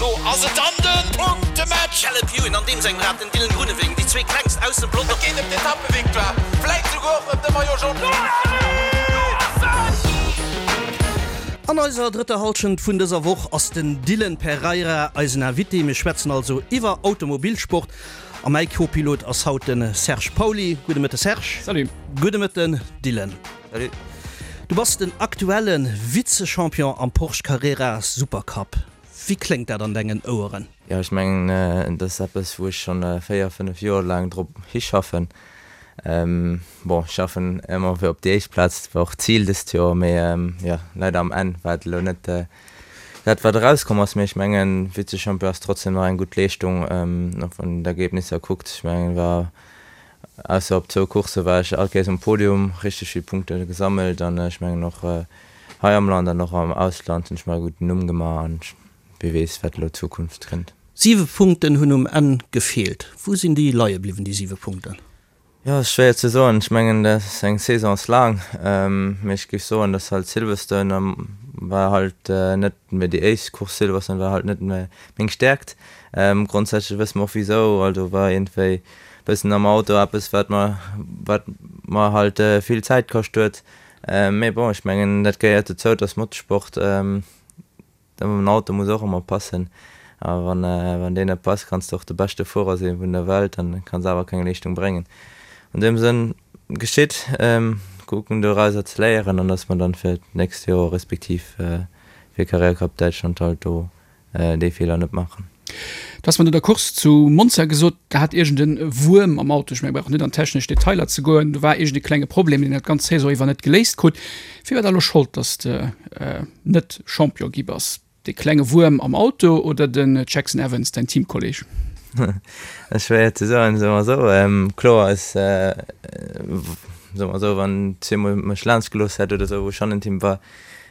Elo ass et dann de Punktematch! Caleb Ewan an deem sengem Rad, den Dylan Groenewegen, déi zwee klengst aus dem Pelotong. Et geet ëm d'Etappevictoire, vläit souguer och ëm de Maillot Jaune. An eiser drëtter Hallschent vun dëser Woch ass den Dylan Pereira eisen Invité. Mir schwätzen also iwwer Automobilsport a mäi Co-Pilot ass haut de Serge Pauly. Gudde Mëtte Serge. Salut. Gudde Mëtten Dylan. Salut. Du bass den aktuelle Vize-Champion am Porsche Carrera Supercup. Wéi kléngt dat an dengen Oueren? Jo, ech mengen, dat ass eppes, wou ech schonn 4, 5 Joer laang drop hischaffen. Bon, ech schaffen ëmmer fir op déi éischt Plaz, dat war och d'Zil dëst Joer, mee jo, leider am Enn war et elo net dat, wat erauskomm ass. Mee ech mengen, Vize-Champion ass trotzdem nach eng gutt Leeschtung, och wann een d'Ergebnisser kuckt. Ech mengen, war Ausser op zwou Coursse war ech all Kéiers um Podium, richteg vill Punkte gesammelt an ech mengen och hei am Land an och am Ausland hunn ech mer e gudden Numm gemaach an wie weess wat elo d'Zukunft kënnt. Siwe Punkten hunn um Enn gefeelt. Wou sinn déi leie bliwwen, déi siwe Punkten? Jo, ass schwéier ze soen. Ech mengen dat eng Saison ass laang, mee ech géif soen, datt halt Silverstone war halt net méi déi éischt Course, Silverstone war halt net méi meng Stäerkt. Grondsätzlech wësse mer och wisou, also war iergendwéi bëssen am Auto eppes wat mer wat mer halt vill Zäit kascht huet. Mee bon, ech mengen dat gehéiert dozou, et ass Motorsport, den Auto muss och ëmmer passen a wann wann deen net passt, kanns de och de beschte Fuerer si vun der Welt, dann kanns awer keng Leeschtung bréngen. An deem Sënn geschitt, kucken dorauser ze léieren an datt mer dann fir d'nächst Joer respektiv fir Carrera Cup Däitschland halt do déi Feeler net maachen. Du has mer no der Course zu Monza gesot, da hat iergend e Wuerm am Auto, ech menge brauch net an technesch Detailer ze goen, do war iergend e klenge Problem, deen dat ganz Saison iwwer net geléist krut. Wie war da elo Schold, datt s de net Champion gi bass? Dee klenge Wuerm am Auto oder den Jackson Evans, däin Teamkolleeg? Dat ass schwéier ze soen, soe mer esou. Kloer ass, soe mer esou, wann zweemol mech laanscht gelooss hätt oder esou, wou ech hannent him war,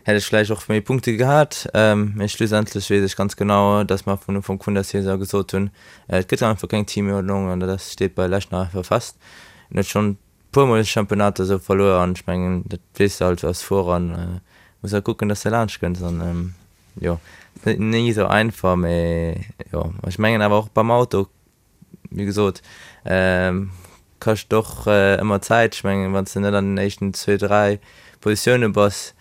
hätt ech vläicht och méi Punkte gehat. Mee schlussendlech weess ech ganz genau, dass mer vun Ufank vun der Saison gesot hunn, et gëtt einfach keng Teamuerdnung an dat steet bei lech nach einfach fest. En huet schonn puermol Championnater esou verluer an ech mengen, dat weess de halt als Fuerer an muss halt kucken, dass de laanscht kënns an jo, ass net ni esou einfach, mee jo, ech mengen awer och beim Auto Wéi gesot, kascht och ëmmer Zäit. Ech mengen, wann s de net an den éischten zwee, dräi Positioune bass,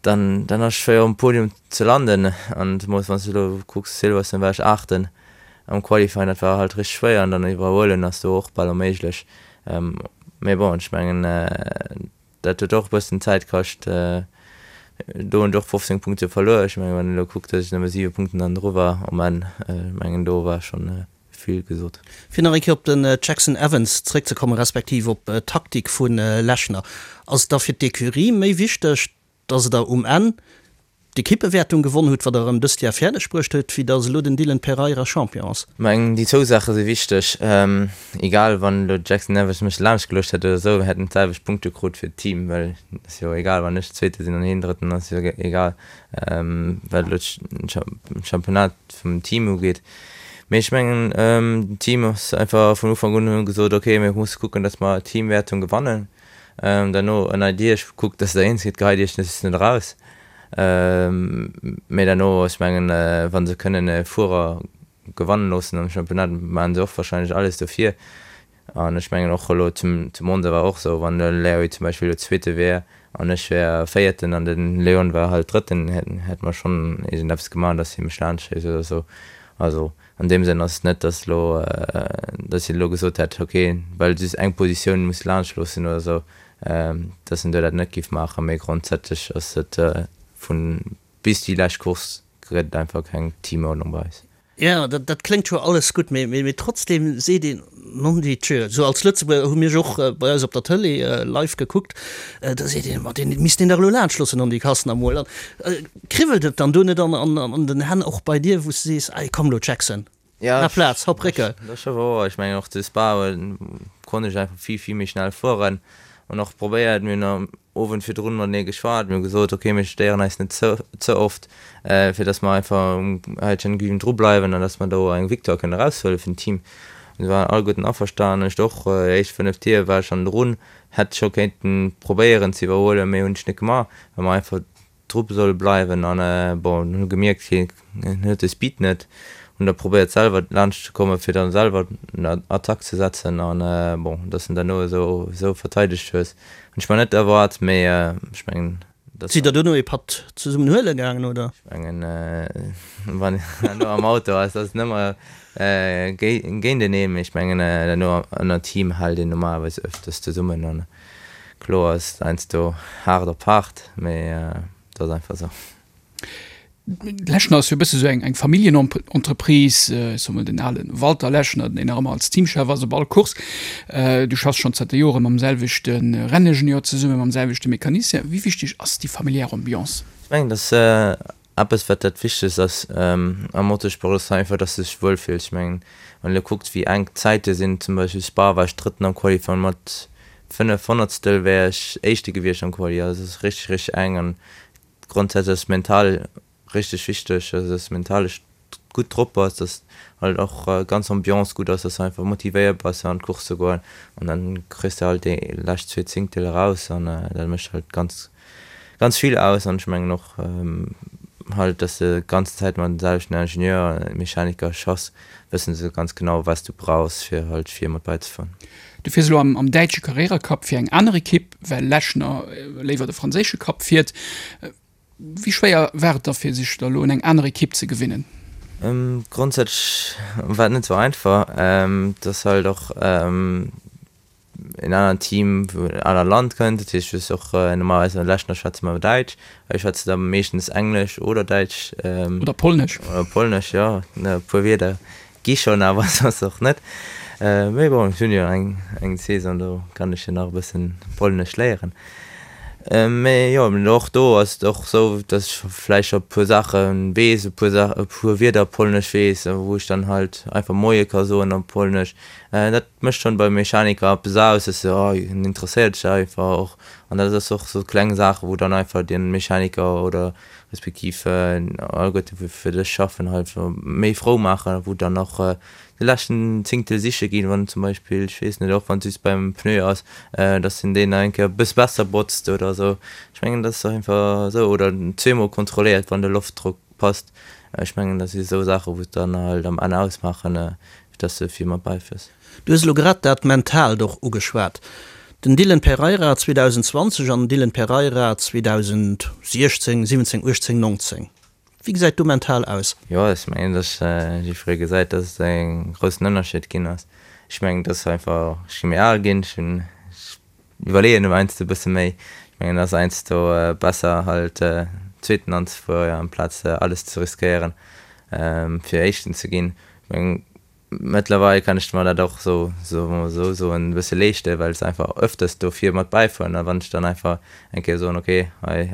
dann dann ass et schwéier um Podium ze landen. An zemools wann s de elo kucks, Silverstone war ech Aachten am Qualifying, dat war halt richteg schwéier an dann iwwerhuelen ass do och bal onméiglech. Mee bon, ech mengen, Dat huet och e bëssen Zäit kascht. Do hunn ech och 15 Punkte verluer. Ech mengen, wann een elo kuckt, datt ech nëmme 7 Punkten dann dru war um Enn, ech mengen, do war schonn vill gesot. Fir nach eng Kéier op den Jackson Evans zréckzekommen, respektiv op d'Taktik vu Lechner, Ass et da fir d'Ecurie méi wichteg, datt Der um Enn d'Ekippewäertung gewonn hutt, wat der erëm dëst Jar fäerdeg bruecht huet, wéi datt elo den Dylan Pereira Champion ass. Mengen déi zwou Saache si wichteg. Egal wann elo Jackson Evans mech laanscht geluecht hätt oder esou, mir hätten d'selwecht Punkte krut fir d'Team, well et ass jo egal wann ech Zweete sinn an hien Drëtten ass jo egal wat elo d'Championnat vum Team ugeet. Mee ech mengen den Team ass einfach vun Ufank un hunn gesot, ok mir musse kucken, datt mer d'Teamwäertung gewannen. Derno ënnert Iech kuckt, dass der eens gitt, geheit Iech just net eraus. Mee derno, ech mengen, wa se kënnen e Fuerer gewannen loossen am Championnat, maachen se och warscheinlech alles dofir. An ech mengen och elo zu Monza war och esou, wann de Larry zum Beispill elo Zweete wär an ech wär Véierten an de Leon war halt Drëtten, hätte mer schonn iergendeppes gemaach, dass hie mech laanscht schéisst oder esou. Also An deem Sënn ass et net, dass elo, dass hien elo gesot hätt, ok, well just eng Positioun muss laanscht loossen oder esou, dass en do dat net géif maachen. Mee grondsätzlech ass et vun bis déi lescht Course gëtt et einfach keng Teamuerdnung bei eis. Jo, dat kléngt scho alles gutt, mee trotzdem seet een, nondidjö, esou als Lëtzebuerger hu mir och bei eis op der Tëlee live gekuckt, da seet een, ma deen misst een dach elo laanscht loossen an déi Kassen emol. Kribbelt et dann do net an den Hänn och bei dir, wou s de sees, Ei, komm elo Jackson, maach Plaz, hopp Récke? Dat ass scho wouer. Ech mengen och zu Spa konnt ech einfach vill, vill méi schnell fueren an och probéiert. Mir hunn am Owend virdrun matenee geschwat, mir hu gesot, ok, mir stéieren eis net ze ze oft, fir datt mer einfach um Häitchen Güven dru bleiwen an datt mer do eng Victoire kënnen eraushuele fir den Team. An se waren alleguerten averstanen. Ech och, déi éischt 5 Tier war ech schonn drun, hätt scho kéinten probéieren ze iwwerhuelen, mee hunn ech net gemaach, well mer einfach. dru soll bleiwen an bon hunn gemierkt hien huet de Speed net, hunn da probéiert selwer laanscht ze komme fir dann selwer en Attack ze setzen an bon dass en derno esou esou verteidegt hues hunn ech mer net erwaart, mee ech mengen dass. Sidd der dono ee Patt zesummen huele gaangen oder? Ech mengen wann een herno am Auto ass, ass et ëmmer géinteneen, mee ech mengen herno ënner Team hält een normalerweis öfters zesummen an Kloer ass et heiansdo haart op haart, mee et ass einfach esou. Lechner ass jo e bësse sou eng eng Familljenentreprise, ech soe mol den ale Walter Lechner, deen nach ëmmer als Teamchef ass op all Course. Du schaffs schonn zanter Jore mam selwechte Renningenieur zesummen, mam selwechte Mecanicien. Wéi wichteg ass déi familiär Ambiance? Ech mengen, dass Eppes wat dat wichtegst ass am Motorsport ass einfach dass de dech wuel fills. Ech mengen wann een elo kuckt wéi enk d'Zäite sinn, zum Beispill Spa war ech drëtten am Qualifying, mat 5 Honnertstel wär ech éischte gewiescht am Quali, also et ass richteg richteg enk an grondsätzlech ass mental richteg wichteg, also dass mental gutt drop bass, dass halt och ganz Ambiance gutt ass, dass du einfach motivéiert bass fir an d'Course ze goen an dann kriss de halt déi lescht zwee Zéngtel eraus an dat mécht halt ganz ganz vill aus an ech mengen och halt, dass de ganzen Zäit mat den selwechten Ingenieur, Mechaniker schaffs, wëssen se ganz genau wat s du brauchs fir halt vir mat bäizefueren. Du fiers elo am däitsche Carrera Cup fir eng aner Ekipp, well Lechner léiwer de franséische Cup fiert. Wéi schwéier war et da fir sech da elo un eng aner Ekipp ze gewinnen? Grondsätzlech war et net sou einfach. Et ass halt och en anert Team vun en anert Land kënnt. Dat heescht, du hues och normalerweis an Lechner schwätze mer Däitsch, hei schwätze se da meeschtens Englesch oder Däitsch. Oder Polnesch. Oder Polnesch, jo. E puer Wierder Gi schonn, awer soss och net. Mee bon, ech hunn jo eng eng Saison, do kann ech jo nach e bëssen Polnesch léieren. Mee jo, och do ass et och esou, datt ech vläicht scho e puer Saache weess, e puer Sa e puer Wierder op Polnesch weess, wou ech dann halt einfach Moie ka soen op Polnesch. Dat mécht schonn beim Mechaniker eppes aus, dass se, oh, en interesséiert sech einfach och. An dat ass och sou kleng Saache wou dann einfach de Mechaniker oder respektiv alleguerte wou fir dech schaffen halt méi frou maachen, wou dann och de leschten Zéngtel siche ginn, wann zum Beispill, ech weess net, och wann et just beim Pneu ass, dass en deen nach eng Kéier e bësse besser botzt oder esou. Ech mengen dat ass einfach esou, oder zweemol kontrolléiert wann de Loftdrock passt. Ech mengen dat si esou Saache wou et dann halt am Enn ausmaachen, fir dass de vill mat bäifiers. Du hues elo grad dat Mentaalt och ugeschwat. Den Dylan Pereira 2020 an den Dylan Pereira 2016, 17, 18, 19. Wéi gesäit do mental aus? Jo, ech mengen, dass jiddweree gesäit, dass et e groussen Ënnerscheed ginn ass. Ech mengen, dass einfach, ech gi méi al ginn, ech hunn, ech iwwerleeën elo heiansdo e bësse méi. Ech mengen, et ass heiansdo besser halt Zweeten anzefueren, amplaz alles ze riskéieren, fir Éischten ze ginn. Ech mengen, Mëttlerweil kann ech mer dat och sou, soe mer esou soen, e bësse leeschten, well ech einfach ëfters do vir mat bäifueren. A wann ech dann einfach eng Kéier soen, ok, hei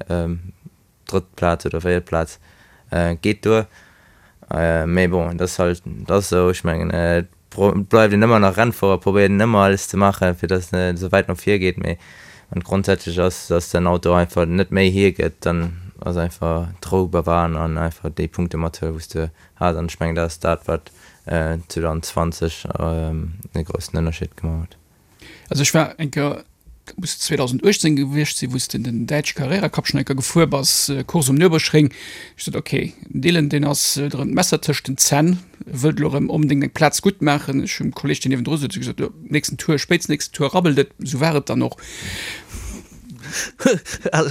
drëtt Plaz oder véiert Plaz geet duer. Mee bon, et ass halt, et ass esou. Ech mengen, et bleift een ëmmer nach Rennfuerer, probéiert een ëmmer alles ze maachen, fir datt et esou wäit no vir geet. Mee wann et grondsätzlech ass, datt den Auto einfach net méi hiergëtt, dann ass einfach d'Rou bewahren an einfach déi Punkte mathuelen, wou s de hat an ech mengen dat ass dat wat 2020 e groussen Ënnerscheed gemaach huet. Also ech war eng Kéier, dat muss 2018 gewiescht sinn, wou s de den däitsche Carrera Cup schonn eng Kéier gefuer bass, Course um Nürburgring. Ech sot, ok, den Dylan deen ass huet erëm d'Messer tëscht den Zänn, wëllt elo erëm onbedéngt eng Plaz gutt maachen. Ech hunn dem Kolleeg deen niewendru souz gesot, jo nächsten Tour, spéitstens nächsten Tour rabbelt et. Esou war et dann och.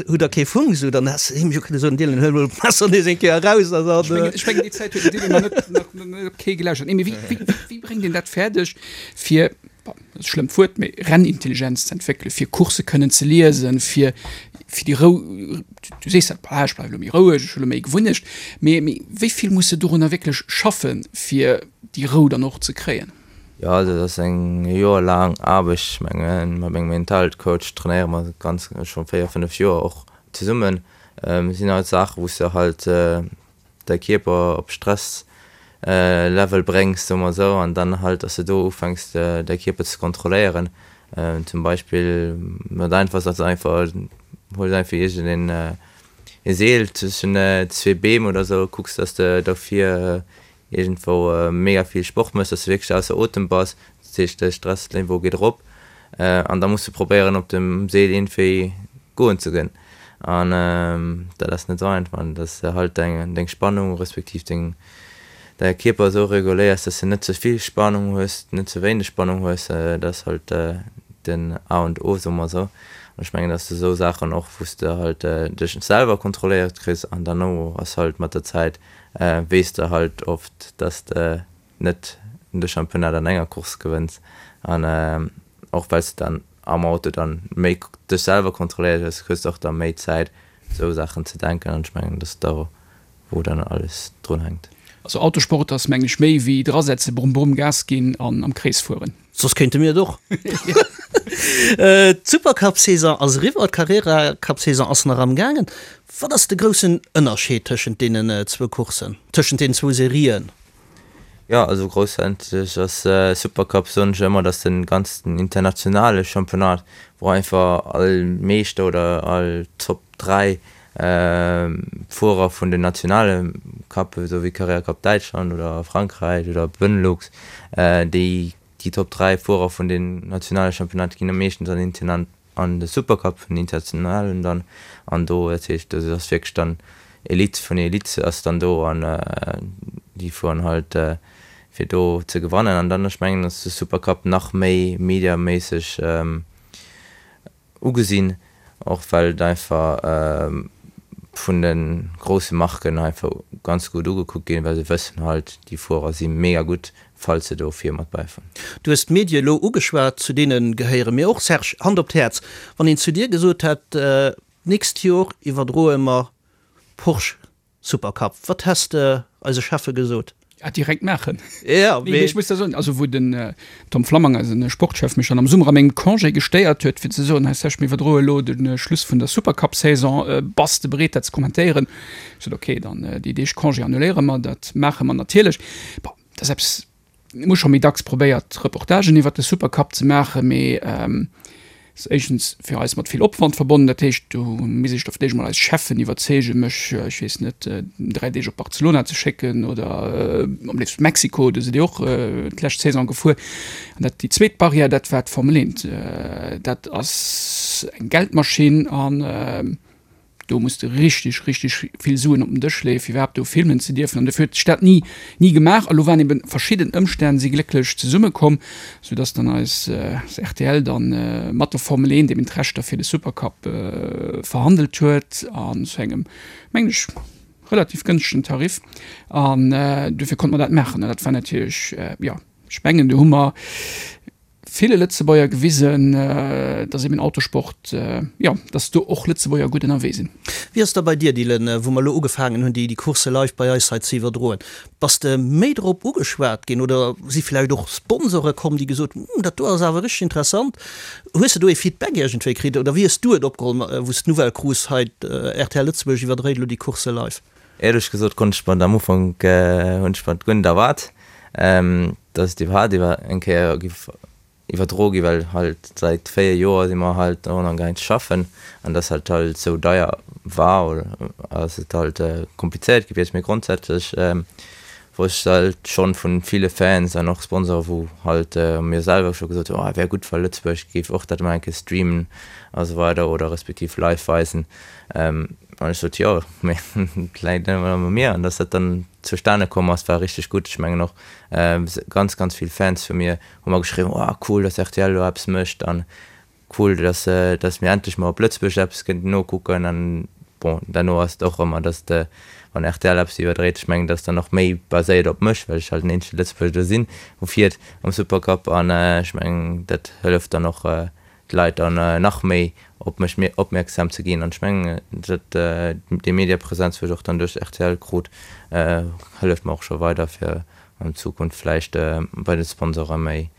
Hutt der kee Funk esou, dann häss de him jo kënne soen, Dylan, huel mol d'Messer nees eng Kéier eraus a Ech mengen, ech mengen déi Zäit huet den Dylan nach net, nach net op kee gelauschtert. Nee, mee wéi, wéi, wéi bréngt een dat fäerdeg, fir, bon, dat ass e schlëmmt Wuert, mee Rennintelligenz ze entwéckelen, fir Coursse kënnen ze liesen, fir, fir déi Rou, du sees dat, bah, ech bleiwe lo méi roueg, ech hu lo méi Gewunnecht, mee, mee wéi vill muss de dorunner wierklech schaffen, fir déi Rou dann och ze kréien? Jo, also dat ass eng joerlaang Aarbecht. Ech mengen, mat mengem Mentalcoach trainéiere mer ganz scho 4, 5 Joer och zesummen. Et sinn halt Saachen, wou s de halt däi Kierper op Stresslevel bréngs, soe mer esou, an dann halt, dass de do ufänks däi Kierper ze kontrolléieren. Zum Beispill, dat einfachst ass einfach, huels einfach iergendeen e Seel zwëschen zwee Beem oder esou, kucks, dass de dofir iergendwou mega vill Sport méchs, dass de wierklech ausser Otem bass, dat heescht de Stressniveau geet erop an da muss de probéieren op dem Seel iergendwéi goen ze ginn. An dat ass net esou einfach an dass de halt deng deng Spannung respektiv deng däi Kierper esou reguléiers, dass de net ze vill Spannung hues, net ze wéineg Spannung hues, dat ass halt den A und O, soe mer esou. An ech mengen, dass de esou Saachen och, wou s de halt dech selwer kontrolléiert kriss an derno ass halt mat der Zäit weess de halt oft, dass de net de Championnat an enger Course gewënns an och well s de dann am Auto dann méi dech selwer kontrolléiert hues, hues de och da méi Zäit esou Saachen ze denken an ech mengen, dass da wou dann alles drun hänkt. Also Autosport ass mengen ech méi wéi drasetzen, brumm brumm Gas ginn an am Krees fueren. Soss kéinte mir et och. D'Supercup-Saison ass eriwwer, d'Carrera-Cup-Saison ass nach am gaangen. Wat ass de groussen Ënnerscheed tëschent deenen zwou Courssen, tëschent deenen zwou Serien? Jo, also groussätzlech ass Supercup, soen ech ëmmer, dass den ganzen internationale Championnat, wou einfach all Meeschter oder all Top 3 Fuerer vun den nationale Cuppen, esou wéi Carrera Cup Däitschland oder Frankräich oder Benelux, déi déi Top 3 Fuerer vun den nationale Championnaten ginn meeschtens an den an de Supercup vun den internationalen dann an do, dat heescht do ass wierklech dann Elite vun Elite ass dann do an déi fueren halt fir do ze gewannen an dann ech mengen ass de Supercup nach méi mediaméisseg Ugesinn, och well et einfach vun de grousse Marken einfach ganz gutt ugekuckt ginn, well se wëssen halt, déi Fuerer si mega gutt, falls se do vir mat bäifueren. Du hues d'Medie elo ugeschwat, zu deene gehéiere mir och. Serge, Hand op d'Häerz, wann een zu dir gesot hätt, d'nächst Jor iwwerdroe mer Porsche Supercup, wat häss de eise Cheffe gesot? Ja, direkt maachen. Ja, mee ech muss da soen, also wou den Tom Flammang, eisen Sportchef, mech dann am Summer a mengem Congé gestéiert huet, fir ze soen, hei Serge, mir iwwerdroe elo de Schluss vun der Supercup-Saison, bass de bereet dat ze kommentéieren? Ech sot, okay, dann déi Deeg Congé annuléiere mer, dat maache mer natierlech. Bon, dat ass eppes, Mir hu scho méi dacks probéiert, Reportagen iwwert de Supercup ze maachen, mee ass éischtens fir eis mat vill Opwand verbonnen. Dat heescht, do misst ech da vläicht emol eis Cheffen iwwerzeegen, mech, ech weess net, 3 Deeg op Barcelona ze schécken oder am léifsten Mexiko, do sidd Dir och d'lescht Saison gefuer. An dat, déi zweet Barrière, dat war d'Formel 1. Dat ass eng Geldmaschinn an Do muss de richteg, richteg vill Suen op den Dësch leeën, fir iwwerhaapt do filmen ze dierfen. An dofir huet sech dat ni, ni gemaach. A lo waren eben verschidden Ëmstänn si glécklech zesummekomm, soudass dann eis rtl dann mat der Formel 1 eben d'Rechter fir de Supercup verhandelt huet an zu engem, mengen ech, relativ gënschtegen Tarif. An dofir konnte mer dat maachen. An dat war natierlech, jo, ech mengen, do hu mer ville Lëtzebuerger gewisen, dass eben Autosport, jo, dass do och Lëtzebuerger gutt ënnerwee sinn. Wéi ass da bei dir, Dylan, wou mer elo ugefaangen hunn, déi Coursse live bei eis hei ze iwwerdroen? Bass de méi drop ugeschwat ginn oder si vläicht och Sponsore komm, déi gesot hunn, Hm, dat do ass awer richteg interessant? Hues de do ee Feedback iergendwéi kritt oder wéi hues du et opgeholl, wou s d'Nouvelle krus, hei rtl Lëtzebuerg iwwerdréit elo déi Coursse live? Éierlech gesot konnt ech mer et am Ufank, hunn ech mer et guer net erwaart. Dass et iwwerhaapt iwwer eng Kéier giff iwwerdro gi well halt säit 4 Joer si mer halt drun amgaang ze schaffen an dass halt halt sou deier war oder ass et halt komplizéiert gewiescht. Mee grondsätzlech wor ech halt schonn vun ville Fans an och Sponsoren wou halt mir selwer scho gesot hunn, oh wär gutt wa Lëtzebuerg géif och dat emol eng Kéier streamen a sou weider oder respektiv live weisen an ech sot jo mee et läit net ëmmer u mir an dass dat dann zustane komm ass, war richteg gutt. Ech mengen och ganz, ganz vill Fans vu mir hu mer geschriwwen, oh cool, dass rtl elo eppes mécht an cool, dass, dass mir endlech mol op Lëtzebuerg eppes kënnten nokucken. An bon, derno ass et och ëmmer, dass de, wann rtl eppes iwwerdréit, ech mengen, dat ass dann och méi baséiert op mech, well ech halt den eenzege Lëtzebuerger do sinn, wou fiert am Supercup an ech mengen, dat hëlleft dann och d'Leit dann nach méi op mech opmierksam ze ginn. An ech mengen, dat déi Mediapräsenz, wou ech och dann duerch rtl krut, hëlleft mer och scho weider, fir an Zukunft vläicht bei de Sponsore méi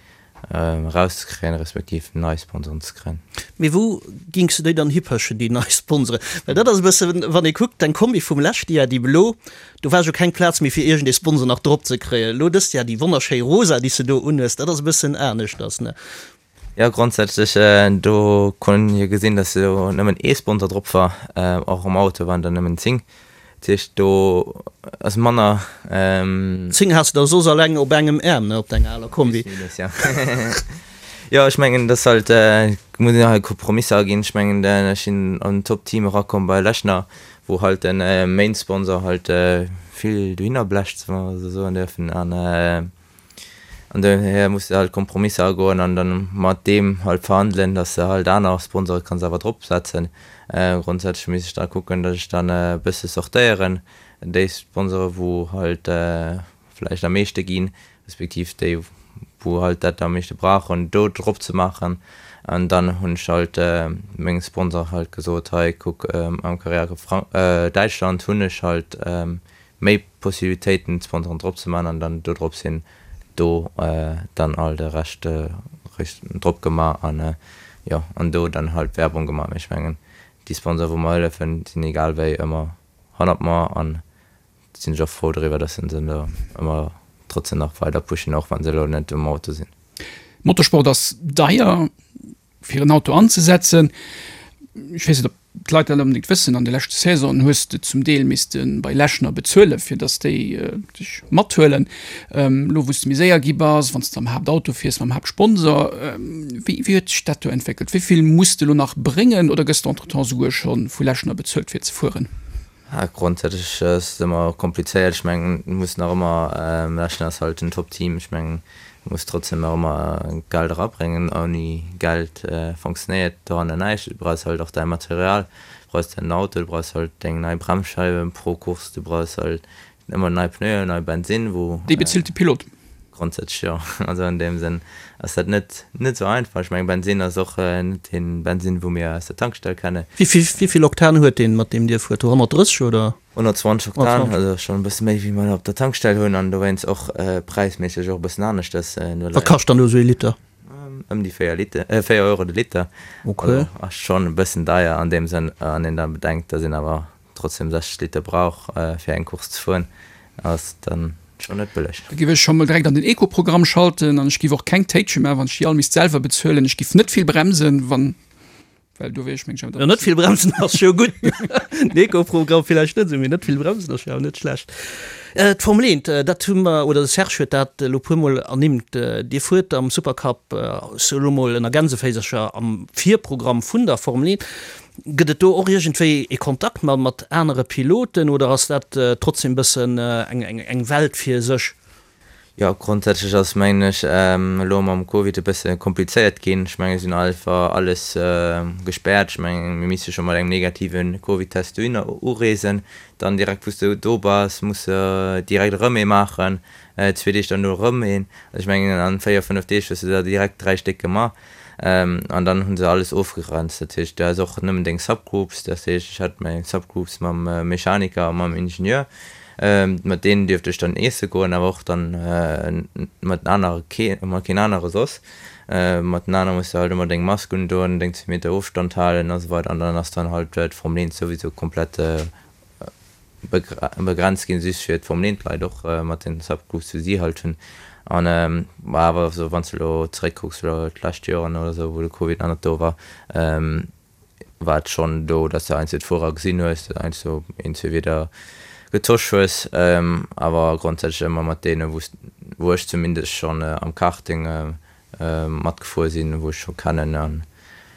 erauszekréien, respektiv nei Sponsoren ze kréien. Mee wou gings de déi dann hipëschen, déi nei Sponsoren? Well dat ass e bëssen, wann ee kuckt, deng Kombi vum leschte Jar, déi blo, do war jo keng Plaz méi fir iergendee Sponsor nach drop ze kréien. Elo dëst Jar déi wonnerschéi rosa, déi s de do unhues, dat ass e bëssen aneschters, ne? Jo, grondsätzlech, do konnt een jo gesinn, dass do nëmmen ee Sponsor drop war. Och am Auto waren der nëmmen 10. Dat heescht, do ass manner. 10 has de der soss alleng op engem Äerm, ne, op denger aler Kombi. Plus minus, jo. Jo, ech mengen, dass halt, muss een halt Kompromisser aginn. Ech mengen, ech sinn an en Top-Team erakomm bei Lechner, wou halt den Main-Sponsor halt vill dohinner blecht, wa mer esou soen dierfen. An an dohier muss de halt Kompromisser agoen an dann mat deem halt verhandelen, dass de halt aner Sponsore kanns awer drop setzen. Grondsätzlech misst ech da kucken, dass ech dann e bësse sortéieren, déi Sponsore wou halt vläicht am meeschte ginn, respektiv déi wou halt dat am meeschte brauchen, do drop ze maachen. An dann hunn ech halt mengem Sponsor halt gesot, hei kuck am Carrera Däitschland hunn ech halt méi Possibilitéiten d'Sponsoren drop ze maachen an dann do drop sinn do dann all de Rescht drop gemaach an jo an do dann halt Werbung gemaach. Mee ech mengen déi Sponsoren wou mer hëllefen sinn egal wéi ëmmer hannert mer an sinn ech och frou driwwer, dass se se do ëmmer trotzdem nach weider pushen, och wann se elo net um Auto sinn. Motorsport ass deier fir en Auto anzesetzen. Ech weess net, ob d'Leit dat onbedéngt wëssen, an de leschte Saisonen hues de zum Deel misste bei Lechner bezuelen, fir datt déi dech mathuelen. Elo wou s de méi séier gi bass, wann s de am Haaptauto fiers mam Haaptsponsor, wéi wéi huet sech dat do entwéckelt? Wéi vill muss de elo nach bréngen oder gëss de entretemps souguer scho vu Lechner bezuelt fir ze fueren? Grondsätzlech ass et ëmmer komplizéiert. Ech mengen, et muss nach ëmmer, Lechner ass halt en Top-Team, ech mengen, et muss trotzdem nach ëmmer Geld erabréngen. Ouni Geld fonctionnéiert doranner näischt. Du brauchs halt och däi Material, du brauchs däin Auto, du brauchs halt deng nei Bremsscheiwen pro Course, du brauchs halt ëmmer nei Pneuen, nei Bensinn, wou. Déi bezilt de Pilot. Grondsätzlech jo. Also an deem Sënn ass dat net net esou einfach. Ech mengen Bensinn ass och net dee Bensinn wou mir aus der Tankstell kennen. Wéi vill Oktan huet deen mat deem Dir fuert? 130 oder? 120 Oktan, also schonn e bësse méi wéi mer op der Tankstell hunn an dowéinst och präisméisseg och e bëssen aneschters. Wat kascht dann do esou ee Liter? Ëm déi 4 Liter, 4 Euro de Liter. Okay. Also ass schonn e bëssen deier an deem Sënn, wann een da bedenkt, datt een awer trotzdem 60 Liter brauch fir eng Course ze fueren, ass dann schon net bëlleg. Da giff ech scho mol direkt an den Eco-Programm schalten an ech giff och keng Téitche maachen, wann ech déi all misst selwer bezuelen. Ech giff net vill bremsen, wann, well do wier ech meng ech awer Jo, net vill bremsen ass jo gutt. Den Eco-Programm villäicht net esou, mee net vill bremsen ass jo awer net schlecht. D'Formel 1, dat hu mer, oder de Serge huet dat elo puermol ernimmt, Dir fuert am Supercup, ech soe lo mol ënner Gänseféisercher, am Virprogramm vun der Formel 1. Gëtt et do och iergendwéi ee Kontakt mat anere Piloten oder ass dat trotzdem bëssen eng Welt fir sech? Jo, grondsätzlech ass mengen ech elo mam Covid e bësse komplizéiert ginn. Ech mengen et sinn einfach alles gespäert. Ech mengen mir misse scho mat engem negative Covid-Test dohinner ureesen, dann direkt wou s de do bass muss de direkt erëm ee maachen, zwee Deeg derno erëm een. Also ech mengen an 4, 5 Deeg hues de der direkt 3 Stéck gemaach. An dann hu se alles ofgegrenzt. Dat heescht, du has och nëmmen deng Subgroups. Dat heescht, ech hat meng Subgroups mam Mechaniker a mam Ingenieur. Mat deenen dierft ech dann iesse goen, awer och dann mat den anere kee, mat keen anere soss. Mat den anere muss de halt ëmmer deng Mask undoen, deng zwee Meter Ofstand halen a sou weider. An dann ass dann halt d'Formel 1 souwisou komplett begrenzt ginn, just fir d'Formel 1 Leit och mat den Subgroups wou si halt hunn. An ma awer esou wann s de elo zeréckkucks elo d'lescht Joren oder esou wou de Covid nach net do war, war et schonn do, datt s de heiansdo d'Fuerer gesinn hues, datt heiansdo een, zwee Wieder getosch hues, awer grondsätzlech ëmmer mat deene wou s wou ech zumindest schonn am Karting matgefuer sinn, wou ech scho kennen an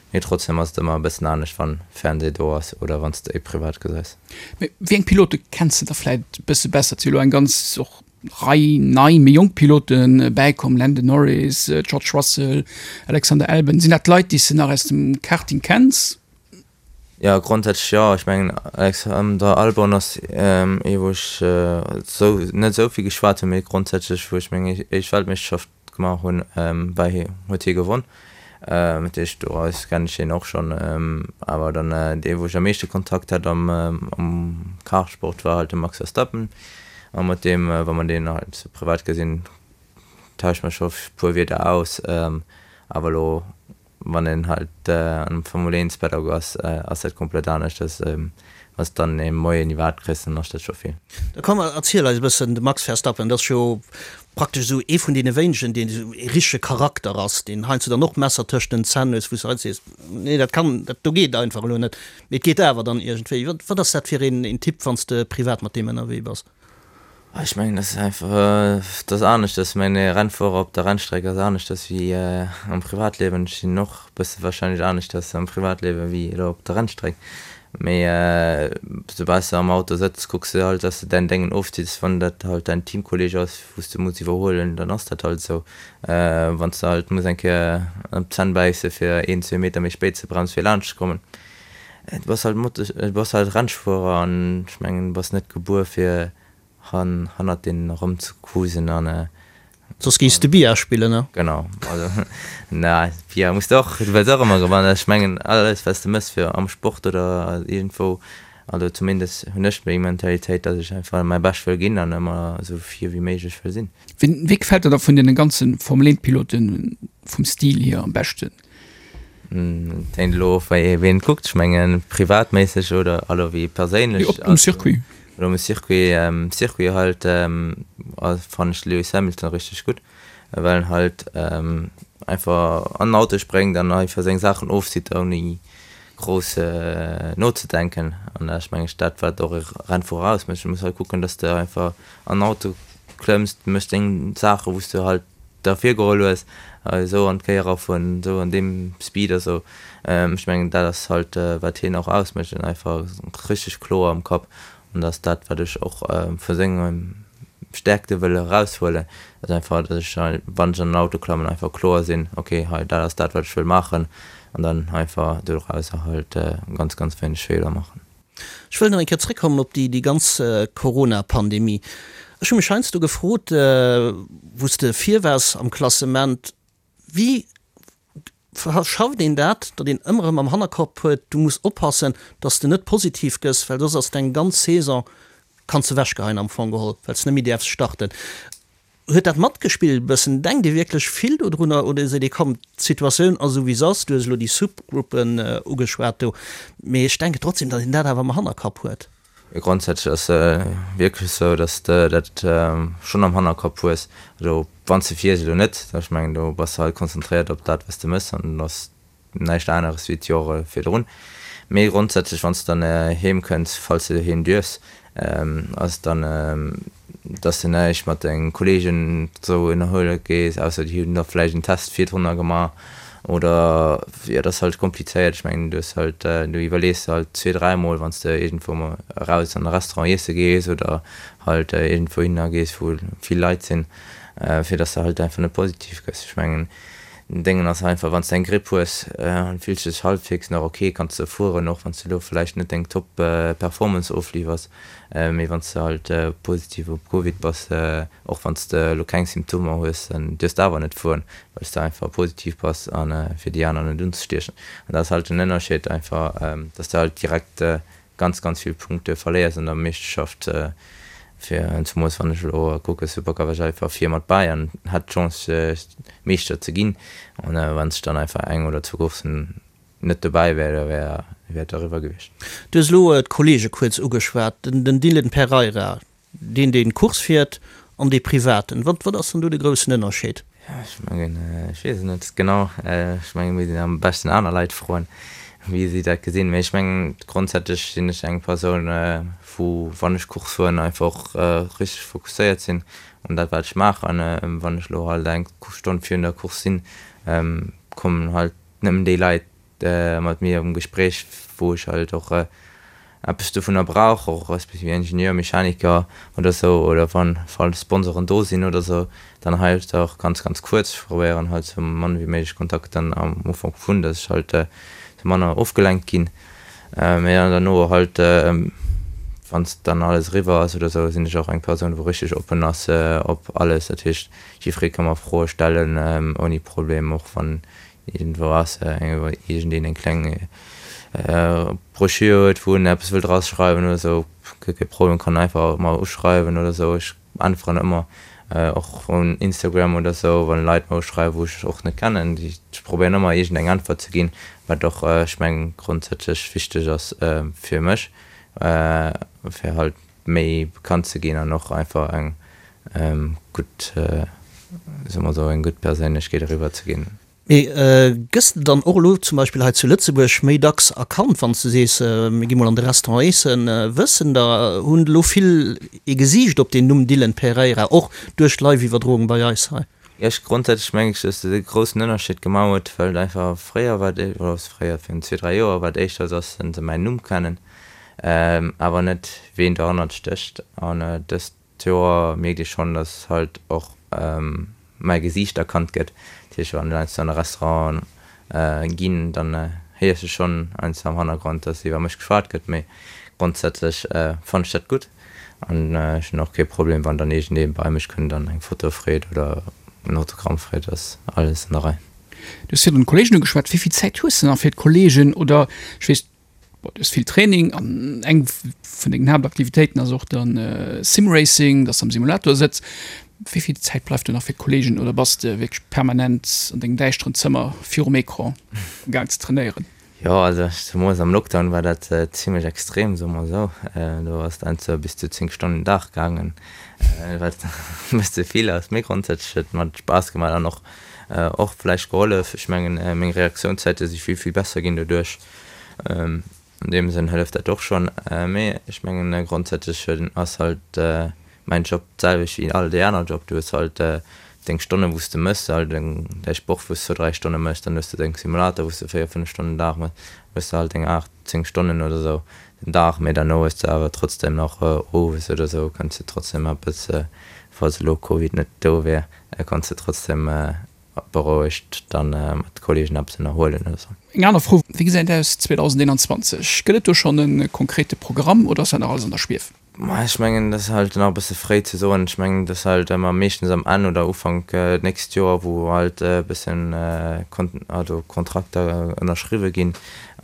mee trotzdem ass et ëmmer e bëssen anescht wann Fernseh do ass oder wann s de ee privat gesäis. Mee wéi eng Pilote kenns de da vläit e bësse besser? Et si elo eng ganz och Rei nei, méi jonk Pilote bäikomm, Lando Norris, George Russell, Alexander Albon. Sinn dat Leit, déi s de nach aus dem Karting kenns? Jo, grondsätzlech jo. Ech mengen Alexander Albon ass ee wou ech sou net esou vill geschwat hunn, mee grondsätzlech wou ech meng éischt Weltmeeschterschaft gemaach hunn, war hie huet hie gewonn. Dat heescht doraus kennen ech hien och schonn. Awer dann dee wou ech am meeschte Kontakt hat am am Kartsport war halt de Max Verstappen a mat deem wa mer deen halt sou privat gesinn tausche mer scho puer Wierder aus. Awer elo Wann een halt am Formel 1 Paddock ass, ass dat komplett anescht. Dass wann s dann ee Moien iwwerhaapt kriss, dann ass dat scho vill. Da komm erziel eis e bëssen, de Max Verstappen, dat ass jo praktesch esou ee vun deene wéinegen, deen esou ee richtege Charakter ass, deen heiansdo dann och d'Messer tëscht den Zänn hues, wou s de heiansdo sees, nee dat kann, dat do geet einfach elo net, mee et geet awer dann iergendwéi. Wat ass dat fir een Typ, wann s de privat mat deem ënnerwee bass? Ech mengen, dat ass einfach, dat ass aneschters. Ech mengen, e Rennfuerer op der Rennstreck ass aneschters wéi am Privatliewen. Ech sinn och e bësse warscheinlech aneschters am Privatliewe wéi elo op der Rennstreck. Mee soubal s de am Auto sëtz, kucks de halt, dass de däin Déngen ofzitts. Wann dat halt däin Teamkolleeg ass, wou s de muss iwwerhuelen, dann ass dat halt esou. Wann s de halt muss eng Kéier op d'Zänn bäisse fir een, zwee Meter méi spéit ze bremsen, fir laanscht ze kommen. Du bass halt Moto, du bass halt Rennfuerer an ech mengen, du bass net gebuer fir hannert deenen erëmzecruisen an. Soss géifs de Billard spillen, ne? Genau, also na Billard muss de och, du wëlls och ëmmer gewannen. Ech mengen alles wat s de mëss fir am Sport oder iergendwou, also zumindest hunn ech déi Mentalitéit, datt ech einfach mäi Bescht wëll ginn an ëmmer esou vir wéi méiglech wëll sinn. Wien, wee gefält der da vun deene ganze Formel 1 Piloten vum Stil hier am beschten? Et hänkt elo of wéi ween et kuckt. Ech mengen privatméisseg oder also wéi perséinlech. Op um Circuit. Oder um Circuit. Um Circuit halt fannen ech de Lewis Hamilton richteg gutt, well en halt einfach an den Auto spréngt an einfach seng Saachen ofzitt ouni grouss nozedenken. An dat ass meng ech dat wat och e Rennfuerer ausmécht. Du muss halt kucken, datt s de einfach an den Auto klëmms, méchs deng Saache wou s de halt der virgeholl hues, esou an d'Kéier erafueren, esou an deem Speed a sou. Ech mengen dat ass halt wat hien och ausmécht, en einfach richteg kloer am Kapp an dat ass dat wat ech och vu senge Stäerkte wëll eraushuelen, ass einfach datt ech wann ech an den Auto klammen einfach kloer sinn, ok hei dat ass dat wat ech wëll maachen an dann einfach dorauser halt ganz ganz wéineg Feeler maachen. Ech wëll nach eng Kéier zréckkommen op déi ganz Corona-Pandemie. Ech hu mech heiansdo gefrot, wou s de vir waars am Klassement, wéi schafft een dat, datt een ëmmer erëm am Hannerkopp huet, du muss oppassen, datt s de net positiv gëss, well soss ass deng ganz Saison, kanns de ewechgeheien am Fong geholl, well s de net méi däerfs starten. Huet dat matgespillt e bëssen? Denkt Dir wierklech vill dodrunner oder seet Dir, komm, d'Situatioun ass esou wéi se ass, du hues elo déi Subgruppen ugeschwat do, mee ech denken trotzdem, datt een dat awer am Hannerkapp huet? Jo, grondsätzlech ass et wierklech esou, datt s de dat schonn am Hannerkapp hues. Also wann s de fiers elo net, ech mengen do bass de halt konzentréiert op dat wat s de méchs an ass näischt aneres wéi d'Jore virdrun. Mee grondsätzlech, wann s de dann heem kënns, falls de heem duerfs, ass et dann, dass de näischt mat denge Kolleegen esou ënnerhuele gees, ausser déi hunn da vläicht en Test virdrunner gemaach oder, jo, dat ass halt komplizéiert. Ech mengen, du hues halt, du iwwerlees der halt zwee-, dräimol, wann s de iergendwou mol eraus an e Restaurant iesse gees oder halt iergendwou hinner gees, wou vill Leit sinn, fir dass de halt einfach net positiv gëss. Ech mengen, Den Déngen ass einfach, wanns de eng Gripp hues an fills dech halbwegs nach ok, kanns de fueren, och wanns de lo vläicht net deng Top Performance ofliwwers, mee wanns de halt positiv op Covid bass, och wanns de lo keng Symptomer hues, dann duerfs de awer net fueren, well s de einfach positiv bass an fir déi aner net unzestiechen. An dat ass halt den Ënnerscheed einfach, dass de halt direkt ganz ganz vill Punkte verléiers an der Meeschterschaft fir zumols wann ech elo kucke Supercup war ech einfach vir mat bäi an hat d'Chance Meeschter ze ginn an wann ech dann einfach eng oder zwou Courssen net dobäi wär da wär wär et eriwwer gewiescht. Du hues elo d'Kollege kuerz ugeschwat, den Dylan Pereira, Deen deen Course fiert an dee privaten, wat wat ass dann do de groussen Ënnerscheed? Ech mengen, ech weess et net genau. Ech mengen, et misst een am beschten aner Leit froen, wéi si dat gesinn. Mee ech mengen, grondsätzlech sinn ech eng Persoun, wou, wann ech Course fueren, einfach och richteg fokusséiert sinn un dat, wat ech maachen. Wann ech elo halt eng Stonn virun der Course sinn, kommen halt nëmmen déi Leit, mat mir am Gespréich, wou ech halt och eppes dovunner brauch, och respektiv Ingenieur, Mechaniker oder sou, oder wann falls Sponsoren do sinn oder sou, dann halt och ganz ganz kuerz. Ech probéieren halt sou mann wéi méiglech Kontakt dann am Ufank vun, dass ech halt sou manner ofgelenkt ginn. Mee dann derno halt, wann dann alles eriwwer ass oder sou, sinn ech och eng Persoun wou richteg oppen ass op alles. Dat heescht jiddweree ka mer Froe stellen ouni Problem, och wann Iergendwou ass iergendeen eng kleng Broschür huet, wou en eppes wëllt eraschreiwen oder esou, guer kee Problem, kann einfach mer uschreiwen oder esou. Ech äntweren ëmmer, och un Instagram oder esou, wann Leit mer uschreiwen, wou ech och net kennen. Ech probéieren ëmmer iergendeng Äntwert ze ginn, wat och, ech mengen, grondsätzlech wichteg ass fir mech, fir halt méi bekannt ze ginn an och einfach eng gutt, soe mer esou, eng gutt Perséinlechkeet eriwwer ze ginn. Mee gëss de dann och elo zum Beispill hei zu Lëtzebuerg méi dacks erkannt, wann s de sees, mir gi mol an de Restaurant eessen? Wëssen der, hunn elo vill ee Gesiicht op deen Numm Dylan Pereira, och duerch d'Live-Iwwerdroung bei eis hei? Jo, ech grondsätzlech mengen ech, dass dat e groussen Ënnerscheed gemaach huet, well et einfach fréier war et, oder fréier, virun zwee, dräi Joer war et éischter, dass se mäin Numm kennen, awer net ween dohannert stécht. An dëst Joer mierkt ee schonn, dass halt och mäi Gesiicht erkannt gëtt. Dat heescht, wann ech heiansdo an e Restaurant ginn, dann héiers de schonn heiansdo am Hannergrond, dass iwwer mech geschwat gëtt. Mee grondsätzlech fannen ech dat gutt an ech hunn och kee Problem, wann dann iergendee bei mech kënnt an eng Foto freet oder en Autogramm freet, ass alles an der Rei. Du hues virun d'Kollegen ugeschwat. Wéi vill Zäit hues de nach fir d'Kollegen oder ech weess, Bon, du hues vill Training an eng vun dengen Haaptaktivitéiten ass och dann Simracing, dass de am Simulator sëtz. Wéi vill Zäit bleift do nach fir d'Kollegen oder bass de wierklech permanent an dengem däischteren Zëmmer virum Ecran am gaang ze trainéieren? Jo, also zemools am Lockdown war dat zimlech extrem, soe mer esou. Do ass et heiansdo bis zu 10 Stonnen den Dag gaangen, wat e bësse vill ass. Mee grondsätzlech huet et mer Spaass gemaach an och och vläicht gehollef. Ech mengen, meng Reaktiounszäite si vill, vill besser ginn doduerch. An deem Sënn hëlleft dat och schonn. Mee ech mengen grondsätzlech ass halt mäin Job d'selwecht wéi all déi aner Job. Du hues halt deng Stonnen, wou s de mëss, halt däi Sport, wou s zwou, dräi Stonne mëss, dann hues de deng Simulator, wou s de véier, fënnef Stonnen den Dag mëss, hues de halt deng aacht, zéng Stonnen oder esou den Dag. Mee derno hues de awer trotzdem nach owes oder esou kanns de trotzdem eppes, falls elo Covid net do wär, kanns de trotzdem berouegt dann mat Kollegen eppes ënnerhuelen oder sou. Eng aner Fro, Wéi gesäit et aus 2021? Gëtt et do schonn e konkrete Programm oder ass dat nach alles an der Schwief? Ma ech mengen, dat ass halt nach e bësse fréi ze soen. Ech mengen, dat ass halt ëmmer meeschtens am Enn oder Ufank d'nächst Joer, wou halt e bëssen also Kontrakter ënnerschriwwe ginn.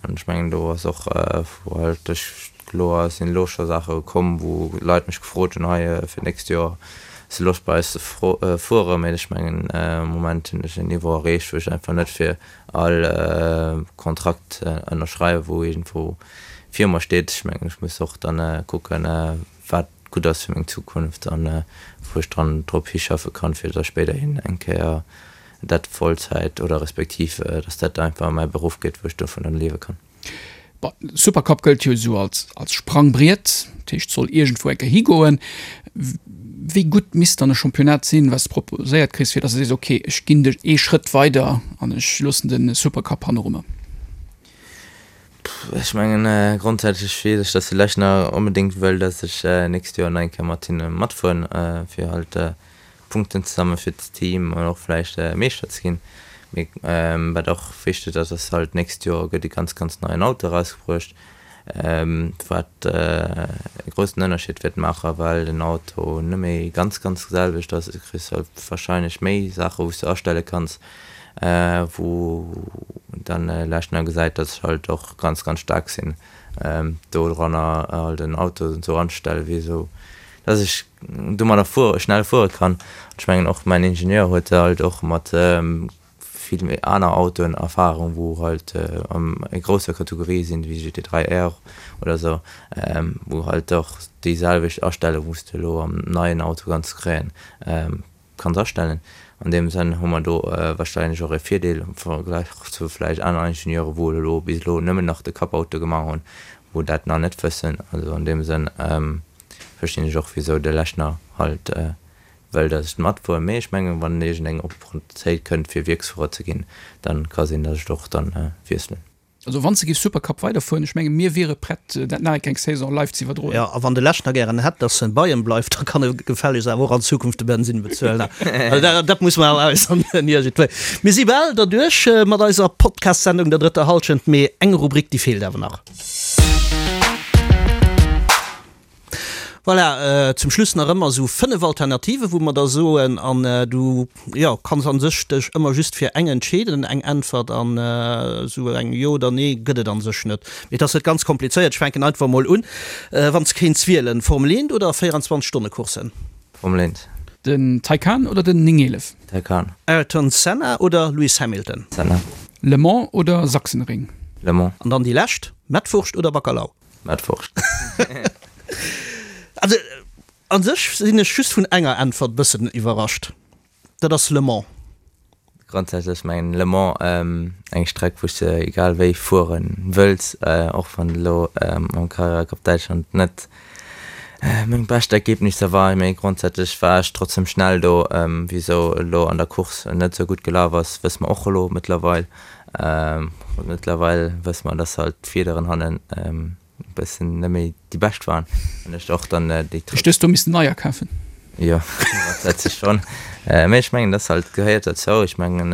An ech mengen, do ass och, wou halt duerch Kloer, et sinn elo scho Saache komm, wou Leit mech gefrot hunn, hei fir d'nächst Joer, hues de Loscht bei eis ze fueren? Mee ech mengen, am Moment hunn ech en Niveau erreecht, wou ech einfach net fir all Kontrakt ënnerschreiwe wou iergendwou vir mer steet. Ech mengen, ech muss och dann kucken, wat gutt ass fir meng Zukunft an wou ech dran drop hischaffe kann, fir da spéiderhin eng Kéier dat Vollzäit oder respektiv, dass dat einfach mäi Beruff gëtt, wou ech dovun dann liewe kann. Bon, Supercup gëllt jo esou als, als Sprangbriet, dat heescht soll iergendwou eng Kéier higoen. Wéi gutt misst dann e Championnat sinn, wat s de proposéiert kriss, fir datt s de sees, okay, ech ginn de ee Schrëtt weider an ech loossen de Supercup hanneru mer? Ech mengen, grondsätzlech weess ech, datt de Lechner onbedéngt wëll, datt ech nächst Joer nach eng Kéier mat hinne matfueren, fir halt Punkten ze sammeln fir d'Team an och vläicht Meeschter ze ginn. Mee wat och wichteg ass, ass halt d'nächst Joer gëtt e ganz ganz neien Auto erausgebruecht, wat e groussen Ënnerscheed wäert maachen, well den Auto net méi ganz ganz selwecht ass. Du kriss halt warscheinlech méi Saache wou s de astelle kanns, wou dann Lechner gesäit, datt ech halt och ganz ganz staark sinn doranner halt en Auto esou anzestellen, wéi esou dass ech domadder fuere, schnell fuere kann. Ech mengen och mäin Ingenieur huet halt och mat vill méi aner Autoen Erfahrung, wou halt an méi grousser Kategorie sinn, wéi GT3 R oder esou, wou halt och déi selwecht Astellung, wou s de elo am neien Auto kanns kréien, kanns astellen. An deem Sënn hu mer do wahrscheinlech och e Virdeel am Vergläich zu vläicht aner Ingenieure, wou elo bis elo nëmmen nach de Cup-Auto gemaach hunn, wou dat nach net wëssen. Also an deem Sënn verstinn ech och wisou de Lechner halt wëll dass ech matfueren, mee ech mengen wann iergendeng Opportunitéit kënnt fir Wierksfuerer ze ginn, dann ka sinn dass ech och dann wiesselen. Also wann s de giffs Supercup weiderfueren, ech menge mir wiere prett dat nach eng Saison live ze iwwerdroen. Jo, a wann de Lechner gären hätt, dass en bei em bleift, da kann e gefällegst awer och an Zukunft de Bensinn bezuelen. Also dat muss mer awer äusseren iergendwéi. Mir si bal derduerch mat eiser Podcast-Sendung der drëtter Hallschent, mee eng Rubrik déi feelt awer nach. Voilà, zum Schluss nach ëmmer esou 5 Alternativen, wou mer da soen, an du, jo, kanns a sech dech ëmmer just fir eng entscheeden, eng Äntwert, an esou eng Jo oder Nee gëtt et a sech net. Mee et ass net ganz komplizéiert, ech fänken einfach mol un, wann s kéints wielen, Formel 1 oder 24 Stonne Courssen? Formel 1. Den Taycan oder den 911? Taycan. Ayrton Senna oder Lewis Hamilton? Senna. Le Mans oder Sachsenring? Le Mans. An dann déi lescht, Mettwurscht oder Bacalao? Mettwurscht. Also an sech sinn ech just vun enger Äntwert bëssen iwwerrascht, dat ass Le Mans. Grondsätzlech mengen Le Mans eng Streck wou s de egal wéi fuere wëlls, och wann elo am Carrera Cup Däitschland net meng bescht Ergebnisser war, mee grondsätzlech war ech trotzdem schnell do. Wisou elo an der Course net esou gutt gelaf ass, wësse mer och elo mëttlerweil. Mëttlerweil wësse mer, dass halt d'Fiederen hannen e bëssen net méi déi bescht waren an ech och dann déi. Ech hues do missen neier kafen. Jo, dat sech schonn. Mee ech mengen, dat halt gehéiert derzou. Ech mengen,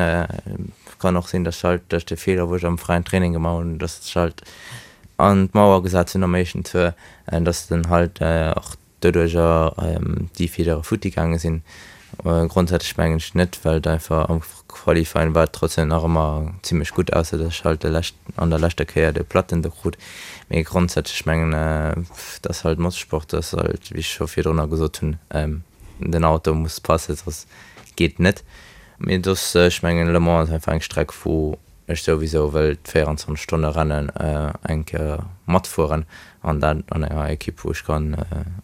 kann och sinn, datt halt duerch de Feeler, wou ech am fräien Training gemaach hunn, datt ech halt an d'Mauer gesat hunn am éischten Tour, datt den halt och doduercher déi Fiedere futti gaange sinn. Grondsätzlech mengen ech net, well et einfach am Qualifying war et trotzdem nach ëmmer zimmlech gutt, ausser datt ech halt de lescht an der leschter Kéier de Platten do krut. Mee grondsätzlech mengen et ass halt Motorsport, ass halt wéi ech scho virdrunner gesot hunn, den Auto muss passen, soss geet net. Mee soss ech mengen Le Mans ass einfach eng Streck wou ech souwisou wëll d'24 Stonne Rennen eng Kéier matfueren an dat an enger Ekipp wou ech kann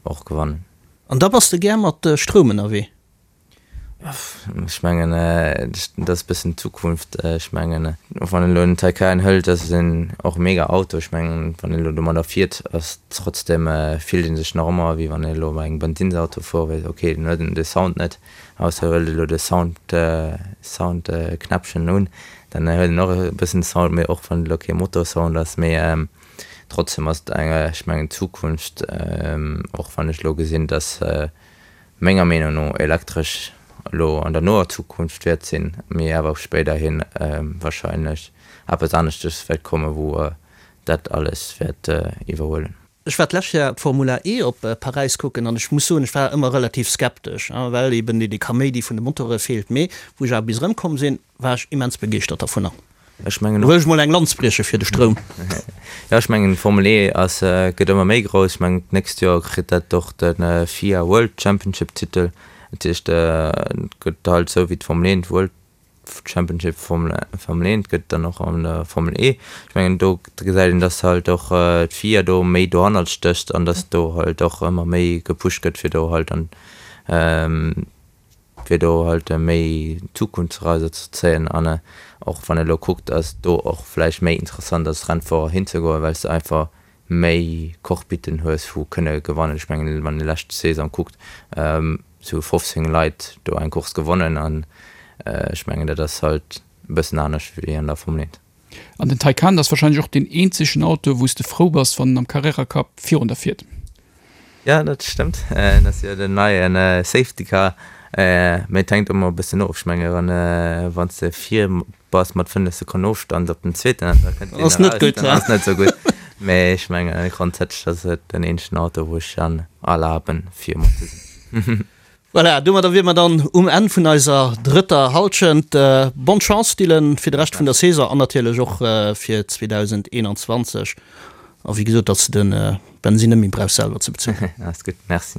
och gewannen. An da bass de gär mat Stroum ënnerwee? Ech mengen dat ass e bëssen d'Zukunft. Ech mengen och wann een elo en Taycan hëlt, dat ass en och e mega Auto. Ech mengen wann een elo domadder fiert ass trotzdem fillt ee sech nach ëmmer wéi wann een elo bei engem Bensinnsauto fuere wéilt. Ok den huet de Sound net, Ausser huelt elo de Sound Sound Knäppchen un, dann huet en och e bëssen Sound, mee och wann et elo kee Motorsound ass, mee trotzdem ass et eng, ech mengen d'Zukunft, och wann ech elo gesinn, dass menger Meenung no elektresch elo an der noer Zukunft wäert sinn, mee awer och spéiderhin wahrscheinlech eppes aneschtes wäert kommen, wou dat alles wäert iwwerhuelen. Ech war d'lescht Joer d'Formula E op Paräis kucken an ech muss soen, ech war ëmmer relativ skeptesch, well eben dee Kaméidi vun de Motore feelt. Mee wou ech awer bis erëmkomm sinn, war ech immens begeeschtert dervunner. Ech mengen och. Wëll ech mol eng Lanz brieche fir de Stroum. Jo, ech mengen d'Formel E ass, gëtt ëmmer méi grouss. Ech mengen d'nächst Joer kritt dat och de FIA World Championship Titel. Dat heescht, et gëtt halt esou wéi d'Formel 1 d'World Championship Formel Formel 1 gëtt dann och an der Formel E. Ech mengen do gesäit een, dass halt och d'FIA do méi dohannert stécht an dass do halt och ëmmer méi gepusht gëtt fir do halt an fir do halt méi Zukunftsreiser ze zéien an och wann ee lo kuckt, ass do och vläicht méi interessant als Rennfuerer hinzegoen, well s de einfach méi Cockpiten hues wou kënne gewannen. Ech mengen wann ee lescht Saison kuckt, sou 15 Leit do eng Course gewonnen an ech mengen dat ass halt e bëssen anescht wéi an der Formel 1. An den Taycan ass wahrscheinlech och deen eenzegen Auto wou s de frou bass wann en am Carrera Cup virun der fiert. Jo dat stëmmt, dat ass jo den neien Safety Car, mee et hänkt ëmmer e bëssen of, ech menge wann wann s de vir bass mat 5 Sekonnen Ofstand op den zweeten an da kënnt deen eraus, dann ass net sou gutt. Mee ech menge grondsätzlech ass et den eenzegen Auto wou ech dann erlaben vir mat ze sinn. Voilà, domadder wier mer dann um Enn vun eiser drëtter Halschent. Bonne Chance Dylan fir de Rescht vun der Saison an natierlech och fir 2021 a wéi gesot, datt s de de Bensin net méi brauchs selwer ze bezuelen. Alles gutt, merci.